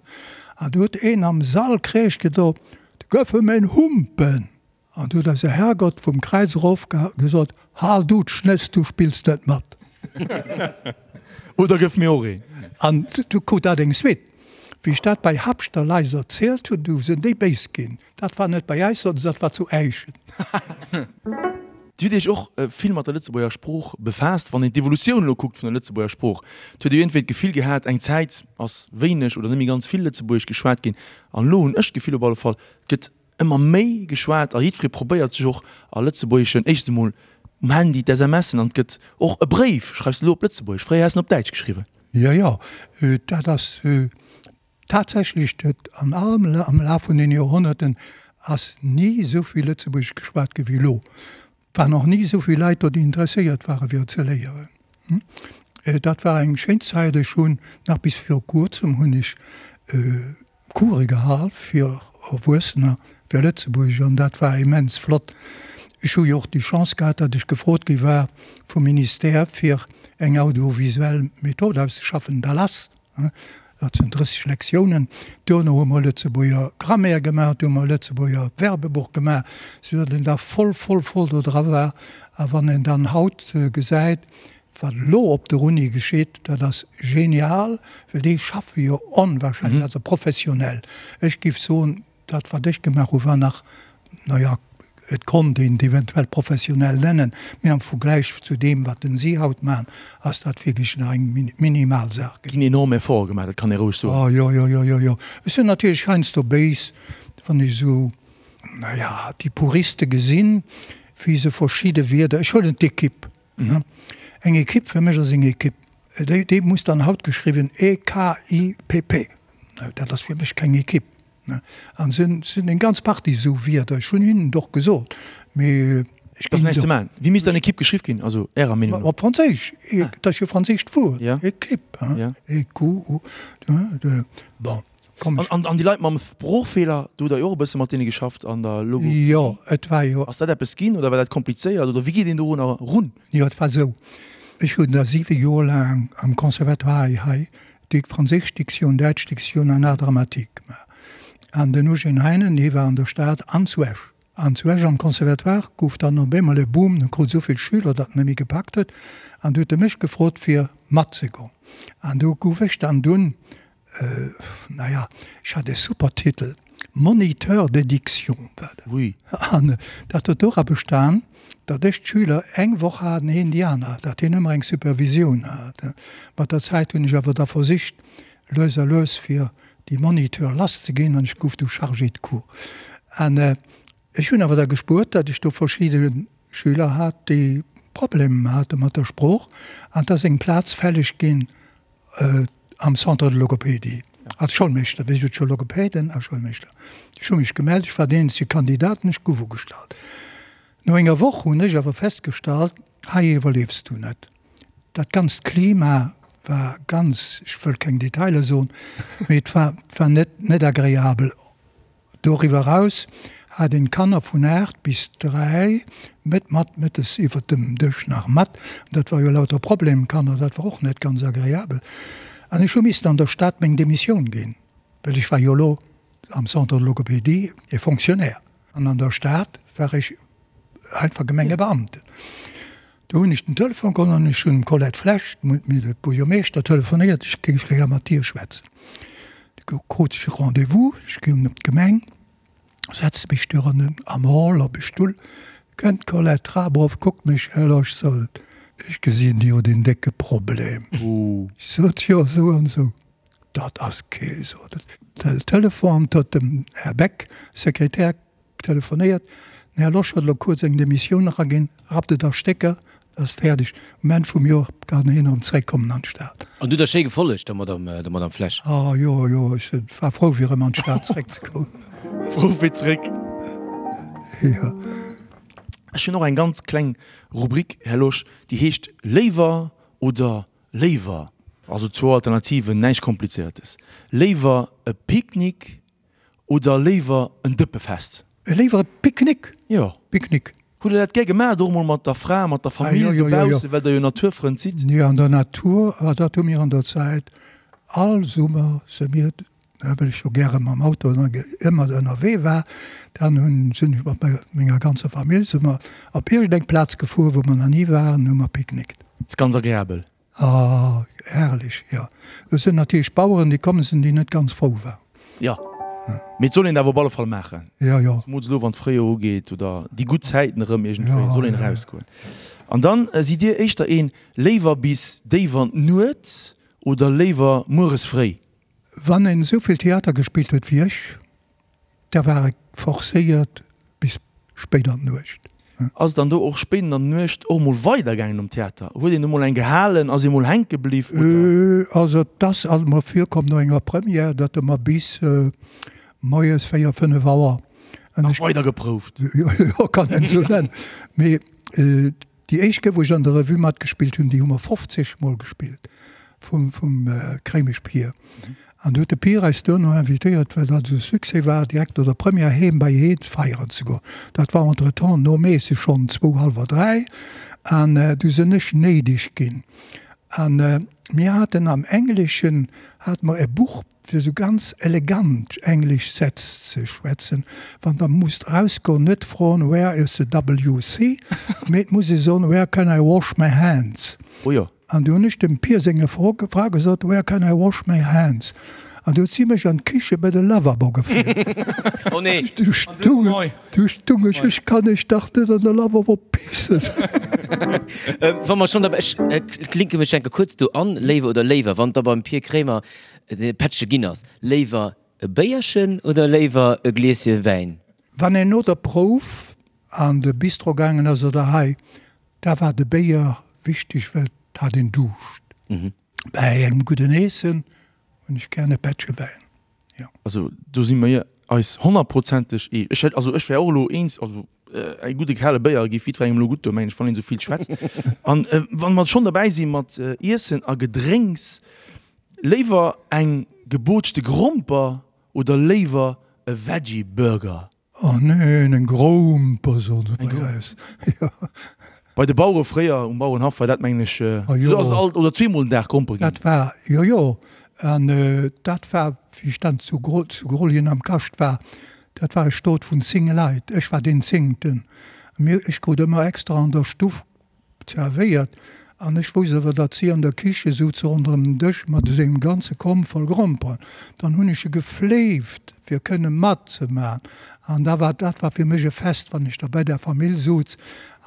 B: An du huet een am Sall Kreesch gedo, Du gëff em een Humpen! An du huet eise Herrgott vum Kräiz erof gesot, Hal du d'Schnëss, du spills net mat!
C: Oder gëff mir och een!
B: An du krut dat eng Suite. Wéi ech dat bei Habschter Lais erzielt hunn, du sinn déi béis ginn. Dat war net bei äis, soten se, dat war zu Äischen.
C: Dir hutt Iech och vill mat der Lëtzebuerger Sprooch befaasst. Wann een d'Evolutioun elo kuckt vun der Lëtzebuerger Sprooch, et huet ee iergendwéi d'Gefill gehat, eng Zäit ass wéineg oder net méi ganz vill Lëtzebuergesch geschwat ginn. An elo hunn ech d'Gefill op alle Fall, et gëtt ëmmer méi geschwat a jiddweree probéiert sech och a Lëtzebuergeschen, éischtens emol um Handy d'SMSen an et gëtt och e Bréif schreifs de elo op Lëtzebuergesch, fréier häss en op Däitsch geschriwwen.
B: Jo, jo, dat ass Tatsächlech huet an allem am Laf vun den Joerhonnerten ass ni esou vill Lëtzebuergesch geschwat gi wéi elo. Et waren och ni esou vill Leit do, déi interesséiert ware fir et ze léieren. Dat war eng schéin Zäit. Ech hunn nach bis viru kuerzem hunn ech Coure gehal fir Erwuessener fir Lëtzebuergesch an dat war immens flott. Ech hu jo och déi Chance gehat, datt ech gefrot gi war vum Ministère fir eng audiovisuell Method auszeschaffen, DALAS. Dat sinn 30 Lektiounen. Duerno hu mer Lëtzebuerger Grammaire gemaach, du hu mer Lëtzebuerger Verbebuch gemaach, sou datt een da voll, voll, voll do dra war. A wann een dann haut gesäit, wat elo op der Uni geschitt, dat ass genial, well déi schaffe jo onwahrscheinlech, also professionell. Ech géif soen, Dat wat ech gemaach hu war nach, na ja, et konnt een et eventuell professionell nennen, mee am Vergläich zu deem wat den si haut maachen, ass dat wierklech nach eng minimal Saach.
C: Ginn enorm Efforte gemaach, dat kann ee roueg soen.
B: Oh jo, jo, jo, jo, jo. Ech sinn natierlech heiansdo béis, wann ech esou, na ja, déi Puriste gesinn, wéi se verschidde Wierder, ech huelen d'Equipe, eng Equipe fir mech ass eng Equipe, déi, déi muss dann haut geschriwwen E-K-I-P-P, dat ass fir mech keng Equipe. An sinn sinn eng ganz Partie esou Wierder. Ech hunn hinnen et och gesot, mee
C: ech ginn näischt ze maachen. Wéi misst dann Equipe geschriww ginn, also Ärer Meenung
B: no? Op Franséisch, dat ass jo e franséischt Wuert, Equipe, E Q U, bon,
C: komm ech. An déi Leit mam Sproochfeeler, do hutt Der jo och e bësse mat deene geschafft an der Logopädie.
B: Jo, et war jo.
C: Ass dat eppes ginn oder war dat komplizéiert oder wéi geet een dorunner erun?
B: Jo, et war esou, ech hunn da siwe Joer laang am Conservatoire hei déi franséisch Diktioun, däitsch Diktioun an Art dramatique gemaach. An den Eugène Heinen, hie war an der Stad an zu Esch. An zu Esch am Conservatoire gouf dann op eemol e Boom, en krut esou vill Schüler, datt en net méi gepackt huet. An du huet e mech gefrot, fir matzegoen. An do gouf ech dann dunn. Naja, ech hat e super Titel, Moniteur de diction war dat.
C: Ui.
B: An dat huet dora bestan, datt ech d'Schüler eng Woch hat an hien déi aner, datt hien ëmmer eng Supervisioun hat. Mat der Zäit hunn ech awer da versicht, lues a lues fir déi Moniteur lass ze ginn an ech gouf du Chargé de cours. An ech hunn awer da gespuert, datt ech do verschidde Schüler hat, déi Problemer hate mat der Sprooch an et ass eng Plaz fälleg ginn am Centre de logopédie als Schoulmeeschter, wéi gesot scho Logopäden a Schoulmeeschter. Ech hu mech gemellt, ech war deen eenzege Kandidat an ech gouf ugestallt. No enger Woch hunn ech awer festgestallt, hei iwwerliefs du net. Dat ganzt Klima war ganz, ech wëll keng Detailer soen, mee et war, et war net, net agreabel. Doriwwer eraus hat een d'Kanner vun 8 bis 3 met mat mëttes iwwert dem Dësch nach mat. Dat war jo lauter Problemkanner, dat war och net ganz agreabel. An ech hu missen an der Stad meng Demissioun ginn, well ech war jo elo am Centre de logopédie e Fonctionnaire an an der Stad war ech einfach Gemengebeamten. Do hunn ech den Telefon geholl an ech hunn dem Colette Flesch, dem Buergermeeschter, telefonéiert, ech géif gär mat dir schwätzen. Du krut ech e Rendez-vous, ech ginn op d'Gemeng, setze mech du an am Hall op e Stull, kënnt d'Colette d'Trap erof, kuckt mech, Här Losch, sot et, ech gesinn jo deen décke Problem. Ech sot, jo, esou an esou. Dat ass kee, sot et. Den Telefon huet dem Här Beck, Sekretär, Telefonéiert, den Här Losch huet elo kuerz eng Demissioun eraginn, rappt et a Stécker, ass fäerdeg. Um Enn vum Joer kann hien erëm zeréckkommen an d'Stad.
A: An du hutt der schéi gefollegt, der Madame, der Madame Flesch?
B: Ah jo, jo, ech war frou fir erëm an d'Stad zeréckzekommen.
C: Frou fir zeréck.
B: Jo.
C: Ech hunn och eng ganz kleng Rubrik, Här Losch, déi heescht Léiwer oder léiwer. Also zwou Alternativen, näischt Komplizéiertes. Léiwer e Picknick Oder léiwer en Dëppefest?
B: Léiwer e Picknick.
C: Jo.
B: Picknick.
C: Hutt der dat gär gemaach, och mol mat der Fra, mat der Famill dobaussen, well der jo Naturfrënd sidd?
B: Jo, an der Natur, ah dat hu mir an der Zäit all Summer se mir, well ech jo gäre mam Auto ëmmer ënnerwee war, dann hunn, sinn ech mat menger ganzer Famill si mer op iergendeng Plaz gefuer, wou mer nach ni waren, hu mer picknickt.
C: Ass ganz agreabel.
B: Ah, herrlech, jo. Do sinn natierlech Baueren, déi komm sinn, déi net ganz frou waren.
C: Jo, mee et soll een et awer op alle Fall maachen.
B: Jo, jo.
C: Zemools elo, wann d'Fréijoer ugeet oder déi gutt Zäiten erëm iergendwéi, soll een erausgoen. An dann, sidd Dir éischter een léiwer bis déif an d'Nuet oder léiwer mueres fréi?
B: Wann een esou vill Theater gespillt huet wéi ech, Da war et forcéiert bis spéit an d'Nuecht.
C: Ass et dann do och spéit an der Nuecht och mol weider gaangen um Theater? Huet een do mol eng gehalen, ass ee mol hänke bliw
B: oder? Also et ass alt mol virkomm no enger Première, datt mer bis moies 4, 5 Auer.
C: Nach weider geprouft?
B: Jo, kann een esou nennen. Mee Déi éischt Kéier, wou ech an der Revue matgespillt hunn, déi hu mer 50 Mol gespillt, vum, vum Kréimesch Pier. An du huet de Pier eis duerno invitéiert, well dat esou e Succès war, direkt no der Première heem bei heen feieren ze goen. Dat war entretemps no Meesse schonn zwou, hallwer dräi. An du sinn ech néideg ginn. An mir haten am Engleschen hate mer e Buch fir esou ganz elegant englesch Sätz ze schwätzen, wann der musst erausgoen, net froen Where is the WC? mee et muss ee soen Where can I wash my hands?
C: Oh jo.
B: An du hunn ech dem Pier senge Fra gesot Where can I wash my hands? An du huet si mech an d'Kiche bei de Lavabo gefouert.
A: Oh nee.
B: Du stung, du stung ech, ech kann iech dach net an de Lavabo pissen.
A: Wa mer schonn derbäi, ech klinke mech enke kuerz do an, Léiwe oder Léiwer, wann der beim Pir Kremer De Pättche ginn ass. Léiwer e Béierchen oder léiwer e Glieschen Wäin?
B: Wann een no der Prouf an de Bistro gaangen ass oder hei, da war de Béier wichteg, well et hat een Duuscht. Bäi engem gudden Eessen hunn ech gären e Pättche Wäin, jo.
C: Also do si mir eis honnertprozenteg ee. Ech hätt, also ech wär och elo eens, also e gudde kale Béier géif jiddwerengem elo gutt doen, mengen ech, wann een esou vill schwätzt. An wa mer schonn derbäi si mat Iessen a Gedrénks, Léiwer eng gebootschte Gromper oder léiwer e Veggie Burger?
B: Oh neen, eng Gromper soen se bei eis. Jo.
C: Bei de Bauere fréier um Bauerenhaff war dat mengen ech, do ass et alt oder zweemol den Dag Gromper ginn.
B: Dat war, jo jo, an dat war wéi ech dann zu Grolljen am Kascht war, dat war e Stot vun 10 Leit, ech war deen zéngten, mir, ech krut ëmmer extra an der Stuff zerwéiert. An ech wousst awer, datt si an der Kiche souz ronderëm den Dësch mat esou engem ganze Komb voll Gromperen. Dann hunn ech se gefléift, fir kënne matzemaachen. An da war, dat war fir mech e Fest, wann ech da bei der Famill souz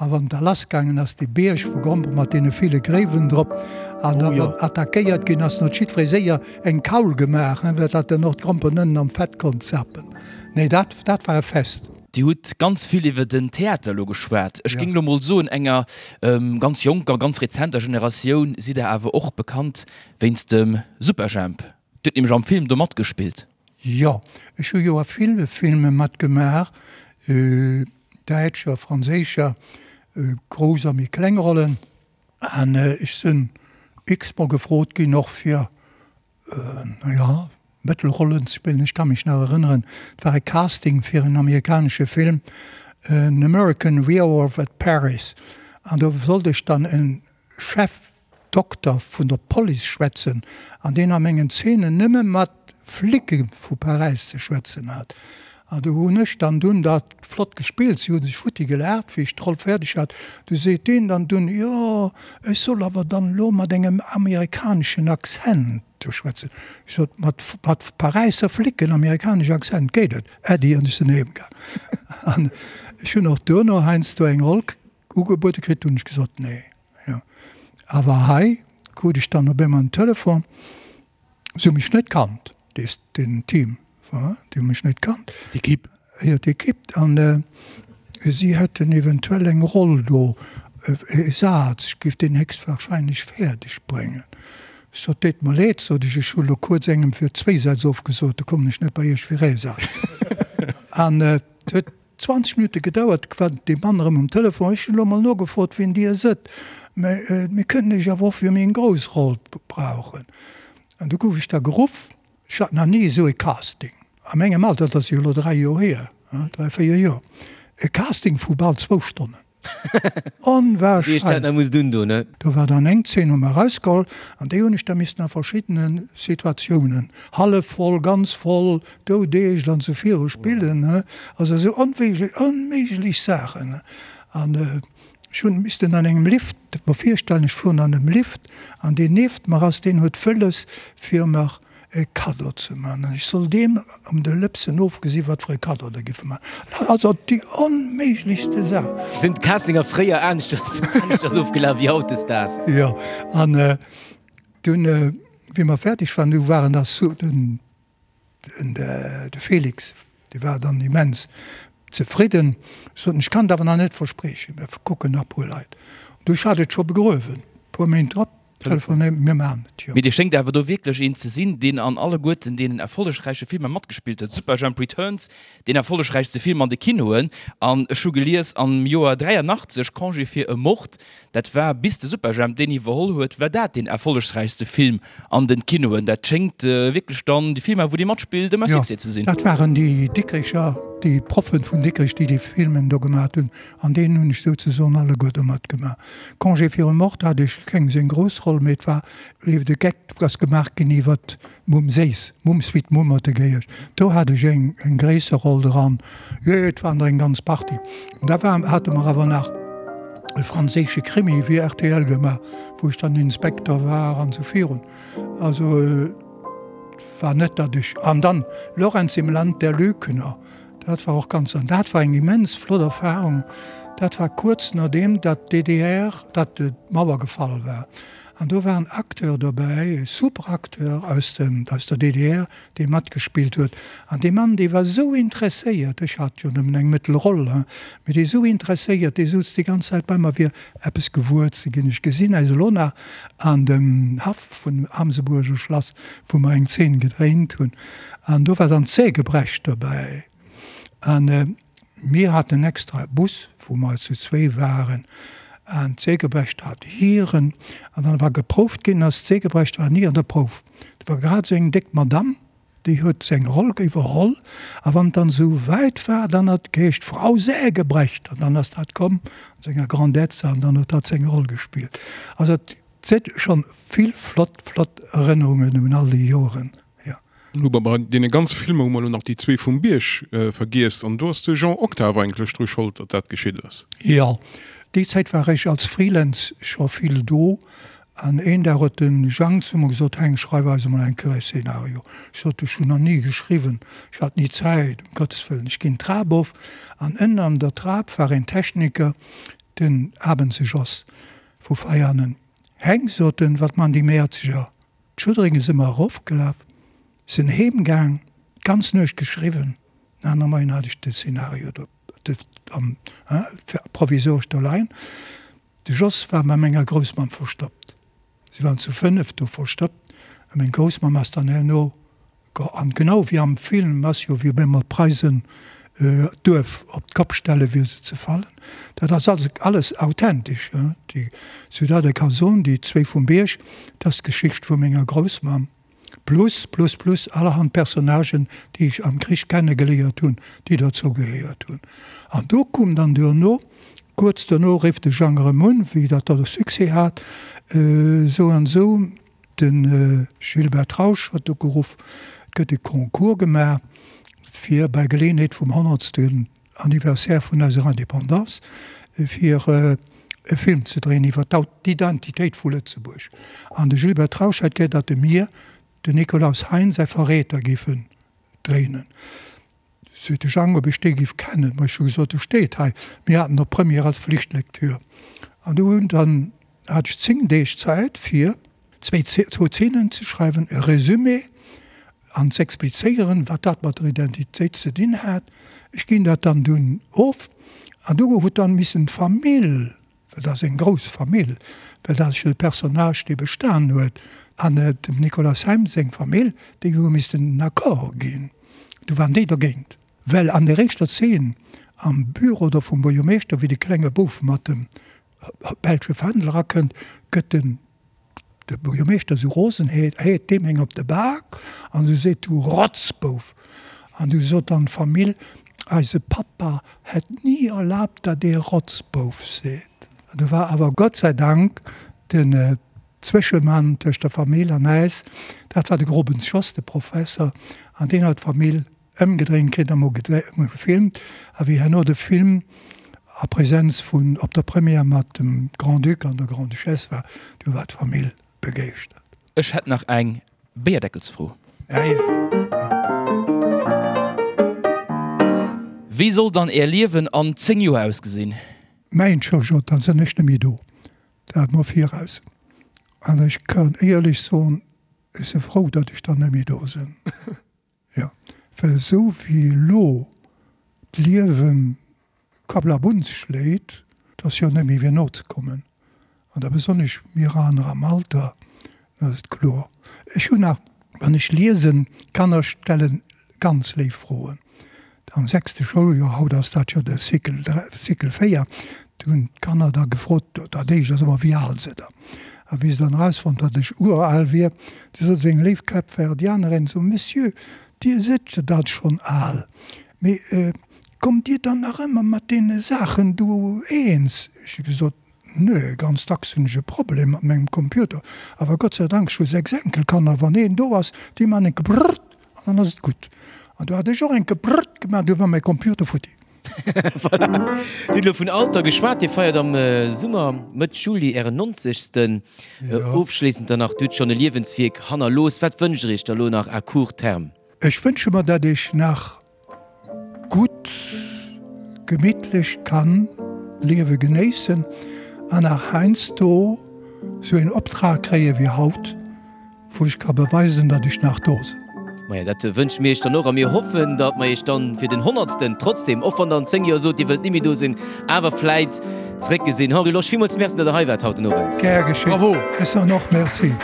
B: a wann et da lassgaangen ass, dee Bierg vu Grompere mat deene ville Gréiwen drop, an da wann attackéiert ginn ass, dann huet jiddweree séier eng Kaul gemaach, fir datt en och d'Gromperen ënnen am Fett konnt zappen. Nee, dat, dat war e Fest.
D: Dir hutt ganz vill iwwer den Theater elo geschwat. Ech géing elo mol soen, enger ganz jonker, ganz rezenter Generatioun sidd Der awer och bekannt wéinst dem Superjhemp. Dir hutt nämlech am Film do matgespillt.
B: Jo, ech hu jo a ville Filme matgemaach, däitscher, franséischer, grouss a méi kleng Rollen. An ech sinn x-mol gefrot ginn och fir, na ja, Mëttelrollen ze spillen. Ech ka mech nach erënneren, et war e Casting fir en amerikanesche Film, An American Werewolf at Paris, an do sollt ech dann e Chef Dokter vun der Police schwätzen an deen a mengen Zeenen nëmme mat Flicke vu Paräis ze schwätzen hat. An do hunn ech dann dunn dat flott gespillt, si hu sech futti gelaacht, wéi ech d'Roll fäerdeg hat. Du seet deen dann dunn, jo, ech soll awer dann elo mat engem amerikaneschen Accent do schwätzen. Ech sot, mat mat Paräisser Flicken, amerikanesch Accent geet et, Äddi, an ech sinn heem gaang. An ech hunn och duerno heiansdo eng Roll ugebuede kritt, hunn ech gesot, nee. Jo, awer hei krut ech dann op eemol en Telefon, se hu mech net kannt, dees, den Team, voilà, déi hu mech net kannt.
C: D'Equipe.
B: Jo, d'Equipe, an si hätten eventuell eng Roll do, e Saz, ech géif deen héchstwahrscheinlech fäerdeg bréngen. Ech sot, Deet mer leed, sot ech, ech hu lo kuerz engem fir zwéi Sätz ofgesot, do kommen ech net bei iech fir ee Saz. An et huet 20 Minutte gedauert, war dee Mann erëm um Telefon. Ech hunn elo mol nogefrot, wien Dir sëtt, mä mir kënnen Iech awer och fir méi eng grouss Roll brauchen. An du gouf ech da geruff. Ech hat nach ni esou e Casting a mengem Alter, dat ass jo elo 3 Joer hier, 3, 4 Joer, e Casting vu bal zwou Stonnen. Onwahrscheinlech! Do war dann eng Zeen hu mer erausgeholl an déi hunn ech da missten a verschiddene Situatiounen, hallef voll, ganz voll, doudeescht an esou viru spillen. Also esou onwierklech onméiglech Saachen. An ech hunn missten an engem Lift, mer virstellen, ech fueren an engem Lift an deen nieft mer ass, deen huet wëlles fir mer e Kaddo ze man an ech soll deem ëm de Lëpsen ofgesi wat fir e Kaddo der giffe man. Also déi onméiglechste Saach.
A: Sinn d'Castinger fréier aneschters aneschters ofgelaf wéi hautdesdaags?
B: Jo, an dunn, wéi mer fäerdeg waren, du waren da sou den de Felix, dee war dann immens zefridden, sot en, ech kann et awer nach net verspriechen, mir kucken nach e puer Leit. Du, ech hat et scho begruewen, e puer Méint drop telefonéiert, mir maachen et, jo.
D: Mee Dir schéngt awer do wierklech een ze sinn, deen an alleguerten deenen erfollegräiche Filmer matgespillt huet. Superjhemp Returns, deen erfollegräichste Film an de Kinoen, an ech hu gelies am Joer 83 Congé fir e Mord, Dat war, bis de Superjhemp deen iwwerholl huet, war dat deen erfollegsräichste Film an den Kinoen. Dat schéngt wierklech dann déi Filmer, wou dee matspillt, ëmmer Succès ze sinn.
B: Jo, dat waren déi Dikricher, déi Proffen vun Dikrich, déi déi Filmen do gemaat hunn. An deenen hunn ech souzesoen alleguer do matgemaach. Congé fir e Mord hat ech keng seng grouss Roll, mee et war ewell de Geck ass gemaach ginn iwwert Mumm Séiss, Mumm sweet Mumm huet e geheescht. Do hat ech eng eng gréisser Roll dran. Jo, jo, et waren der eng ganz Partie. An da war, hate mer awer nach e franséische Krimi fir rtl gemaach, wou ech dann Inspekter war an esou virun. Also et war net, datt ech, an dann Lorenz im Land der Lügner, dat war och ganz, an dat war eng immens flott Erfahrung. Dat war kuerz nodeem datt d'DDR, datt d'Mauer gefall war. An do war en Acteur dobäi, e super Acteur aus dem, aus der DDR, dee matgespillt huet. An dee Mann, dee war esou interesséiert, ech hat jo nëmmen eng mëttel Roll, hein, mee dee esou interesséiert, dee souz déi ganz Zäit bei mer, fir eppes gewuer ze ginn. Ech gesinn äis elo nach an dem Haff vun dem Amsebuerger Schlass, wou mer eng Zeen gedréint hunn. An do war dann d'Sägebrecht dobäi. An mir haten extra e Bus, wou mer zu zwéi waren, an d'Sägebrecht hat hiren. An dann war geprouft ginn, ass d'Sägebrecht war ni an der Prouf. Do war grad esou eng déck Madamm, déi huet seng Roll iwwerholl. A wann et dann esou wäit war, dann hat et geheescht, Frau Sägebrecht! An dann ass dat komm an senger Grandezza an dann huet hatt seng Roll gespillt. Also et si schonn vill flott, flott Erënnerungen un all déi Joren. Jo.
E: Elo bei deene ganze Filmer hu mer elo nach déi zwee vum Bierg vergiess an do ass de Jean Octave eigentlech dru Schold, datt dat geschitt ass.
B: Jo. Déi Zäit war ech als Freelance scho vill do an een Dag huet de Jang zu mer gesot, Heng, schreif eis emol eng Kéier e Szenario. Ech sot, Ech hunn nach ni geschriwwen, ech hat ni Zäit, um Gottes Wëllen. Ech ginn d'Trap of an ënnen an der Trap war een Techniker, den Abense Jos vu Veianen. Heng, sot en, wat man déi Mäerzeger? D'Schudderinge si mer erofgelaf, sinn heem gaang, d'ganz Nuecht geschriwwen. Den aner Moien hat ech de Szenario do provisoresch do leien. De Jos war bei menger Groussmamm verstoppt. Si waren zu 5 do verstoppt a meng Groussmamm ass dann herno An genau wéi am Film ass jo, wéi op eemol d'Preisen d'Duerf op d'Kopp stellen, fir se ze fallen. Dat ass also alles authentesch. Déi Ciudad de Cason, déi zwéi vum Bierg, dat ass d'Geschicht vu menger Groussmamm. Plus, plus, plus allerhand Personnagen, déi ech am Krich kennegeléiert hunn, déi dozou gehéiert hunn. An do koum dann duerno, kuerz duerno rifft de Jang erëm un, wéi dat da Succès hat, esou an esou, De Gilbert Trausch huet ugeruff, et gëtt e Concours gemaach, fir bei Geleeënheet vum honnertsten Anniversaire vun eiser Indépendance, fir e Film ze dréien iwwer d'Identitéit vu Lëtzebuerg. An de Gilbert Trausch hätt gär, datt e mir den Nikolaus Hein säi Verräter géifen dréinen. Seet de Jang, ob ech dee giff kennen. Ma ech hu gesot, e steet hei. Mir haten op Première als Flichtlektür. An do hunn dann, hat ech 10 Deeg Zäit fir zwéi, zwou Zeenen ze schreiwen, e Résumé an z'explizéieren, wat dat mat der Identitéit ze dinn hat. Ech ginn dat dann dunn of. An do huet dann missen d'Famill Well dat ass eng grouss Famill, well dat ass jo de Personnage, dee bestan huet. An dem Nicolas Heim seng Famill, déi hu missten den Accord ginn. Du waren déi dergéint. Well an der éischter Zeen am Büro do vum Buergermeeschter, wéi de klenge Bouf mat dem belsche Fändel erakënnt, gëtt den De Buergermeeschter esou rosen, heet deem eng op de Bak an esou seet, Du Rotzbouf! An du sot dann d'Famill, Eise Pappa hätt ni erlaabt, datt ee Rotzbouf seet. An du war awer Gott sei Dank den Zwëschemann tëscht der Famill an äis, dat war de Grobens Jos, de Professer, an deen huet d'Famill Ëmgedréint kritt a mol gefilmt a wéi herno de Film a Präsenz vun op der Première mat dem Grand-Duc an der Grande-Duchesse war, du war d'Famill begeeschtert.
D: Ech hätt nach eng Béierdeckelsfro. Wéi soll dann Är Liewen an 10 Joer ausgesinn?
B: Mäin Jojo, dann sënn ech net méi do, dat mol viraus. An ech kann éierlech soen, ech si frou, datt ech dann net méi do sënn. Jo, well esou wéi elo d'Liewe Kablabuns schléit, et ass jo net méi fir nozekommen. An da besonnesch mir aner am Alter, dat ass et kloer. Ech hunn nach, wann ech liesen, d'Kanner stelle ganz léif Froen. Am sechste Schouljoer, haut ass dat jo de Cycle 3, Cycle 4, do hunn d'Kanner da gefrot, dat éischt ass ëmmer, wéi al sidd Der? A wéi se dann erausfonnt, datt ech ural wier, du sot seng léif Kapverdianerin so, Monsieur, Dir sidd jo dat schonn al, mee kommt Dir dann nach ëmmer mat deene Saachen do eens? Ech hu gesot, Nö, ganz dacks hunn ech e Problem mat mengem Computer, awer Gott sei Dank, ech hu 6 Enkelkanner, wann een do ass, déi man enke brrrt an dann ass et gutt. An du hat ech och enke brrrt gemaach, du war mäi Computer futti.
A: Voilà. Dir hutt elo vun Alter geschwat. Dir feiert am Summer, Mëtt Juli, Ären nonzegsten. Ofschléissend dann nach, Dir hutt schonn e Liewenswierk hannerlooss. Wat wënscht Der Iech da elo nach à court terme?
B: Ech wënsche mer, datt ech nach gutt, gemittlech kann d'Liewe genéissen an nach heiansdo sou een Optrag kréie wéi haut. Wou ech ka beweisen, datt ech nach do sinn.
A: Maja, dat wënsche mir iech dann och a mir hoffen, datt mer iech dann fir den Honnertsten trotzdem, och wann der an 10 Joer sot, dir wëllt ni méi do sinn, awer vläit zréckgesinn. Henri Losch, villmools Merci, datt der hei waart haut den Owend.
B: Gär geschétt.
C: Bravo.
B: Ech soen och Merci.